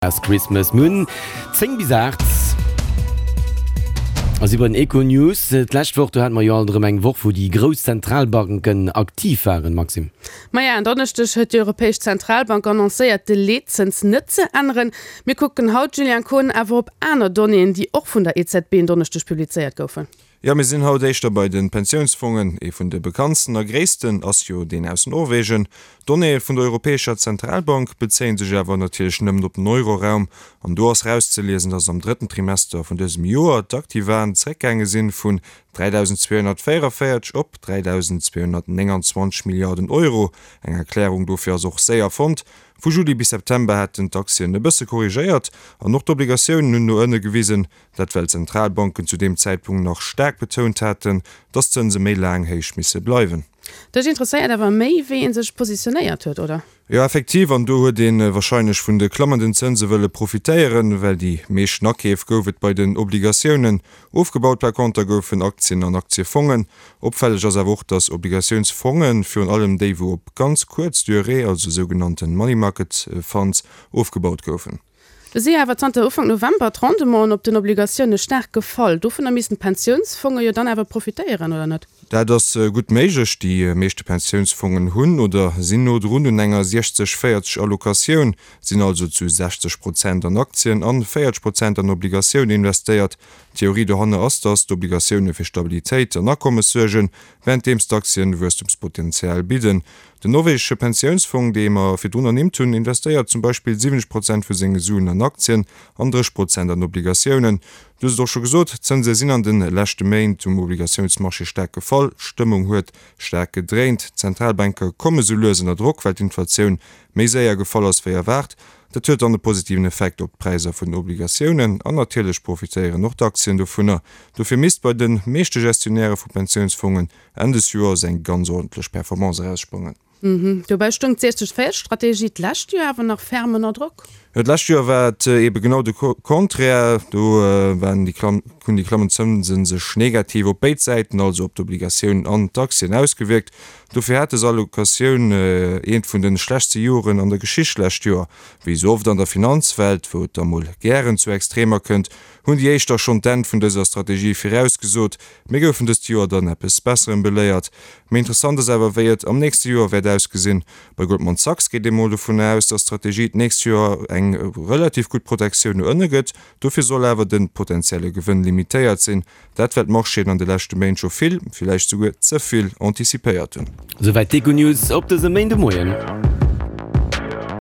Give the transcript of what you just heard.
Past Christmas. Mir hunn 10 bis 8 a si bei den Econews. D'lescht Woch, do hate mer jo alt erëm eng Woch, wou déi grouss Zentralbanken aktiv waren, Maxime. Maja, en Donneschdeg huet déi Europäesch Zentralbank annoncéiert, de Leetzëns net ze änneren. Mir kucken haut, Julien Kohn, awer op aner Donnéeën, déi och vun der EZB en Donneschdeg publizéiert goufen. Jo, mir sinn haut éischter bei de Pensiounsfongen. Ee vun de bekanntsten a gréissten ass jo deen aus Norwegen. D'Donnéeë vun der Europäescher Zentralbank bezéie sech awer natierlech nëmmen op den Euroraum. An do ass rauszeliesen, datt am drëtten Trimester vun dësem Joer d'Aktivaen zeréckgaange sinn vun 3.244 op 3.229 Milliarden Euro. Eng Erklärung dofir ass och séier fonnt, Vu Juli bis September hätten d'Aktien e bësse korrigéiert an och d'Obligatiounen hunn no ënne gewisen. Dat well d'Zentralbanken zu deem Zäitpunkt nach staark betount haten, datt d'Zënse méi laang héich misse bleiwen. Dech interesséiert awer méi, wéi ee sech positionéiert huet, oder? Jo, effektiv, an do huet ee warscheinlech vun de klammenden Zënse wëlle profitéieren, well déi meeschten Akeef gouf et bei den Obligatiounen. Ofgebaut par conter goufen Aktien an Aktiefongen. Opfälleg ass awer och, datt Obligatiounsfongen, virun allem déi wou op ganz kuerz Durée, also sougenannte Money Market Funds, ofgebaut goufen. Do si awer zanter Ufank November d'Rendementen op den Obligatioune staark gefall. Dovunner missten d'Pensiounsfonge jo dann awer profitéieren, oder net? Dat ass gutt méiglech. Déi meeschte Pensiounsfongen hunn oder sinn no drun un enger 60, 40 Allocatioun, sinn also zu 60 Prozent an Aktien an 40 Prozent an Obligatioune investéiert. D'Theorie dohanner ass, datt d'Obligatioune fir Stabilitéit an Akommes suergen, wärenddeems d'Aktien Wuesstumspotenzial bidden. Den norwegesche Pensiounsfong, dee mer virdrun ernimmt hunn, investéiert zum Beispill 70 Prozent vu senge Suen an Aktien an 30 Prozent an Obligatiounen. Du hues et och scho gesot, d'Zënse sinn an de leschte Méint um Obligatiounsmarché staark gefall. D'Stëmmung huet staark gedréint. D'Zentralbanke komme sou lues ënner Drock, well d'Inflatioun méi séier gefall ass wéi erwaart. Dat huet dann e positiven Effekt op d'Präisser vun den Obligatiounen an natierlech profitéieren och d'Aktien dovunner. Dofir misst bei de meeschte Gestionnairë vu Pensiounsfongen Enn des Joers eng ganz ordentlech Performance eraussprangen. Dobäi stoung d'60 40 Strategie d'lescht Joer awer nach ferm ënner Drock. Jo, d'lescht Joer war et eebe genau de Contraire. Do waren déi klamm, hunn déi klammend Zënse sech negativ op béid Säiten, also op d'Obligatiounen an d'Aktien, ausgewierkt. Dofir hat des Allocatioun eent vun de schlechtste Joren an der Geschicht d'lescht Joer. Wéi esou oft an der Finanzwelt, wou et da mol gären zu Extremer kënnt, hunn déi éischter schonn d'Enn vun dëser Strategie virausgesot. Mir goufen dëst Joer dann eppes Besserem beléiert. Méi interessant ass awer, wéi et am nächste Joer wäert ausgesinn. Bei Goldman Sachs geet ee mol dovun aus, dass d'Strategie d'nächst Joer eng relativ gutt Protektioun no ënne gëtt. Dofir soll awer de potentielle Gewënn limitéiert sinn. Dat well d'Marchéen an de leschte Méint scho vill, villäicht souguer ze vill, anticipéiert hunn. Souwäit d'Econews op dësem Méindemoien.